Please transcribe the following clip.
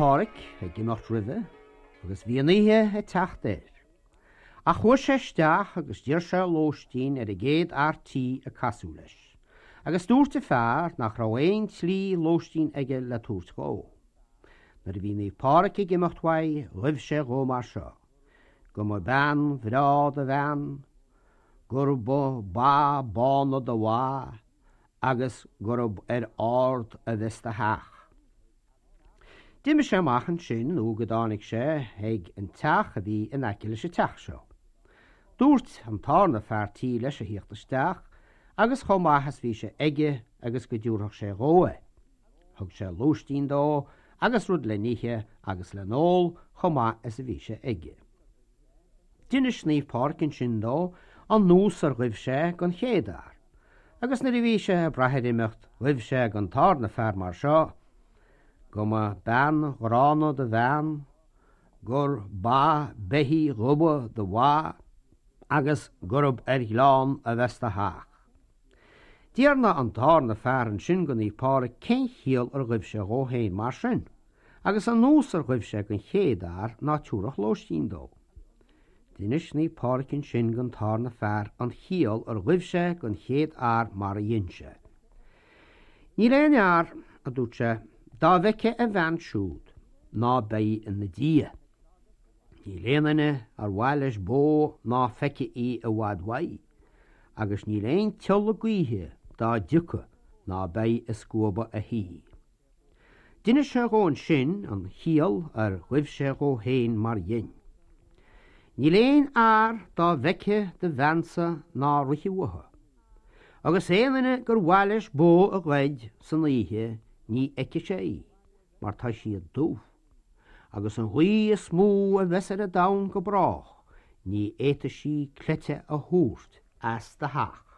Pádhraic ag imeacht roimhe agus bhí an oíche ag teacht air. Ach chuaigh sé isteach agus d'iarr sé lóistín ar an gcéad fhear tí a casadh leis, agus dúirt an fear nach raibh aon tslí lóistín aige le tabhairt dhó. Nuair a bhí Naomh Pádhraic ag imeacht uaidh ghuibh sé dhó mar seo, Go mba bean bhreá do bhean, gur ba ba bána do bha, agus gurb ar ard a bheas do theach. D'imigh sé amach ansin nó go dtáinig sé ag an teach a bhí in aice leis an teach seo. Dúirt an tarna fear tí leis a thíocht isteach agus chomh maith is bhí sé aige agus go dtiúrfadh sé dhó é. Thug sé lóistín dó agus rud le n-ithe agus le n-ól chomh maith is a bhí sé aige. D'inis Naomh Pádraig ansin dó an nós ar ghuibh sé gon chéad fhear, agus nuair a bhí sé ag brath ar imeacht ghuibh sé gon tarna fear mar seo, Go mba bean ghránna do bhean, gur ba beithígh dhubha do bha, agus gurb ar ghleann a bheas do theach. D'fhiarnaigh an tarna fear ansin go Naomh Pádraig cén chiall ar ghuibh sé dhó féin mar sin. agus an nós ar ghuibh sé gon chéad fhear ná tiúrfadh lóistín dó. D'inis Naomh Pádraig ansin gon tarna fear an chiall ar ghuibh sé gon chéad fhear mar a dhein sé. Níl aon fhear, a dúirt sé, dá bhfeicfidh a bhean siúd ná beidh ina diaidh. Níl aon duine ar mhaith leis bó ná feicfidh í i bhfad uaidh, agus níl aon tsiolla gaoithe dá dtiocfadh ná beidh ag scuabadh a thí. D'inis sé dhó ansin an chiall ar ghuibh sé dhó féin mar dhein. Níl aon fhear dá bhfeicfeadh do bheansa ná rithfeadh uathu. Agus aon duine gur mhaith leis bó a ghoid san oíche ní fheicfidh sé í, mar tá siad dubh. Agus an ghaoth is mó a bheas ar an domhan go brách ní fhéadfaidh sí cleite a thabhairt as do theach.